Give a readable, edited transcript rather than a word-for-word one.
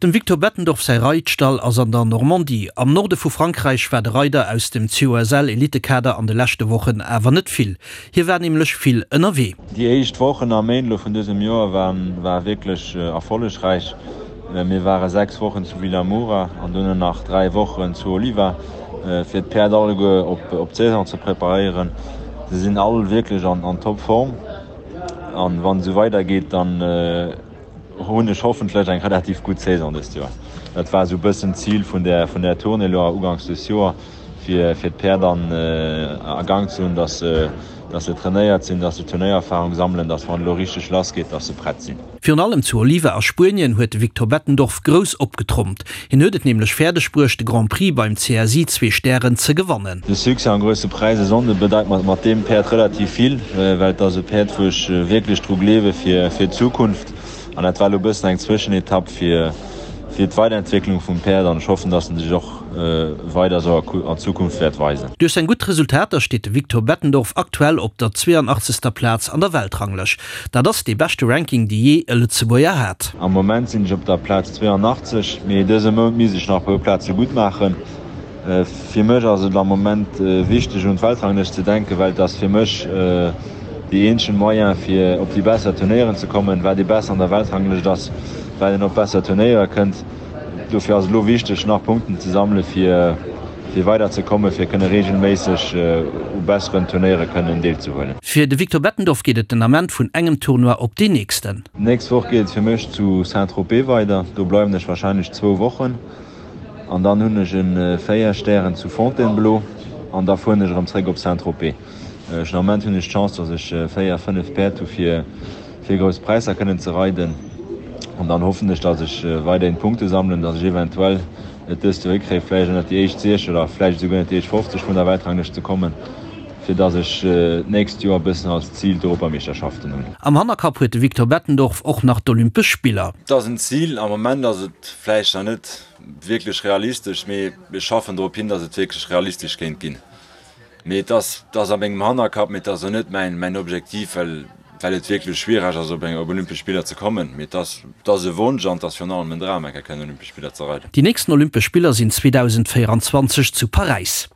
Dem Victor Bettendorf säi Reitstall ass an der Normandie. Am Norde vu Frankräich war de Reider aus dem COSL-Elitekader an de leschte Wochen awer net vill. Hie war nämlech vill ënnerwee. Déi éischt Wochen a Méint elo vun dësem Joer ware wierklech erfollegräich. Mir ware 6 Wochen zu Vilamoura an duerno nach 3 Wochen zu Oliva, fir d'Päerd alleguer op d'Saison ze preparéieren. Se sinn all wierklech an Topform an wann et esou weidergeet, dann hunn ech hoffentlech eng relativ gutt Saison dëst Joer. Dat war esou e bëssen d'Zil vun där vun där Tournée elo uganks des Joer, fir fir d'Päerd an a Gang ze hunn, dass se dass se trainéiert sinn, dass se Turnéiererfarung sammelen, dass wann et elo richteg lass geet, dass se prett sinn. Virun allem zu Oliva a Spuenien huet de Victor Bettendorf grouss opgetrompt. Hien huet et nämlech fäerdeg bruecht de Grand Prix beim CSI Zwee Stären ze gewannen. De Succès am Grousse Präis e Sonnde bedeit mer mat deem Päerd relativ vill, well et ass e Päerd wou ech wierklech dru gleewe fir d'Zukunft. An dat war elo e bëssen eng Zwëschenetapp fir d'Weiderentwécklung vum Päerd an ech hoffen, dass en sech och weider esou an Zukunft wäert weisen. Duerch seng gutt Resultater steet de Victor Bettendorf aktuell op der 82. Plaz an der Weltranglëscht. Dat ass dee beschte Ranking, dee jee e Lëtzebuerger hat. Am Moment sinn ech op der Plaz 82, mee dëse Mount misst ech nach e puer Plaze gutt maachen. Fir mech ass et am Moment wichteg un d'Weltranglëscht ze denken, well et ass fir mech déi eenzegen Moyen fir op déi besser Turnéieren ze kommen. Wat ee besser an der Weltranglëscht ass, wat een op besser Turnéiere kënnt. Dofir ass et elo wichteg nach Punkten ze sammele fir fir weider ze kommen, fir kënne reegelméisseg u besseren Turnéiere kënnen deelzehuelen. Fir de Victor Bettendorf geet et den Ament vun engem Tournoi op deen nächsten. D'nächst Woch geet et fir mech zu Saint-Tropez weider. Do bleiwen ech warscheinlech zwou Wochen an dann hunn ech e 4 Stären zu Fontainebleau an da fueren ech erëm zréck op Saint-Tropez. Ech den Ament hunn ech d'Chance, dass ech 4, 5 Päerd hu fir fir grouss Präisser kënnen ze reiden an dann hoffen ech, dass ech weiderhin Punkte sammelen, dass ech eventuell et dëst Joer hikréien, vläicht ënnert déi éischt 60 oder vläicht esouguer ënnert déi éischt 50 vun der Weltranglëscht ze kommen, fir dass ech d'nächst Joer e bëssen als Zil d'Europameeschterschaften hunn. Am Hannerkapp huet de Victor Bettendorf och nach d'Olympesch Spiller. Et ass en Zil. Am Moment ass et vläicht nach net wierklech realistesch, mee ech schaffen drop hin, dass et wierklech realistesch kéint ginn. Mee et ass, et ass a mengem Hannerkapp, mee et ass och net mäin, mäin Objektiv, well, well et wierklech schwiereg ass, op eng, op Olympesch Spiller ze kommen. Mee et ass, et ass e Wonsch an et ass virun allem en Dram, eng Kéier kënnen Olympesch Spiller ze reiden. Déi nächsten Olympesch Spiller sinn 2024 zu Paräis.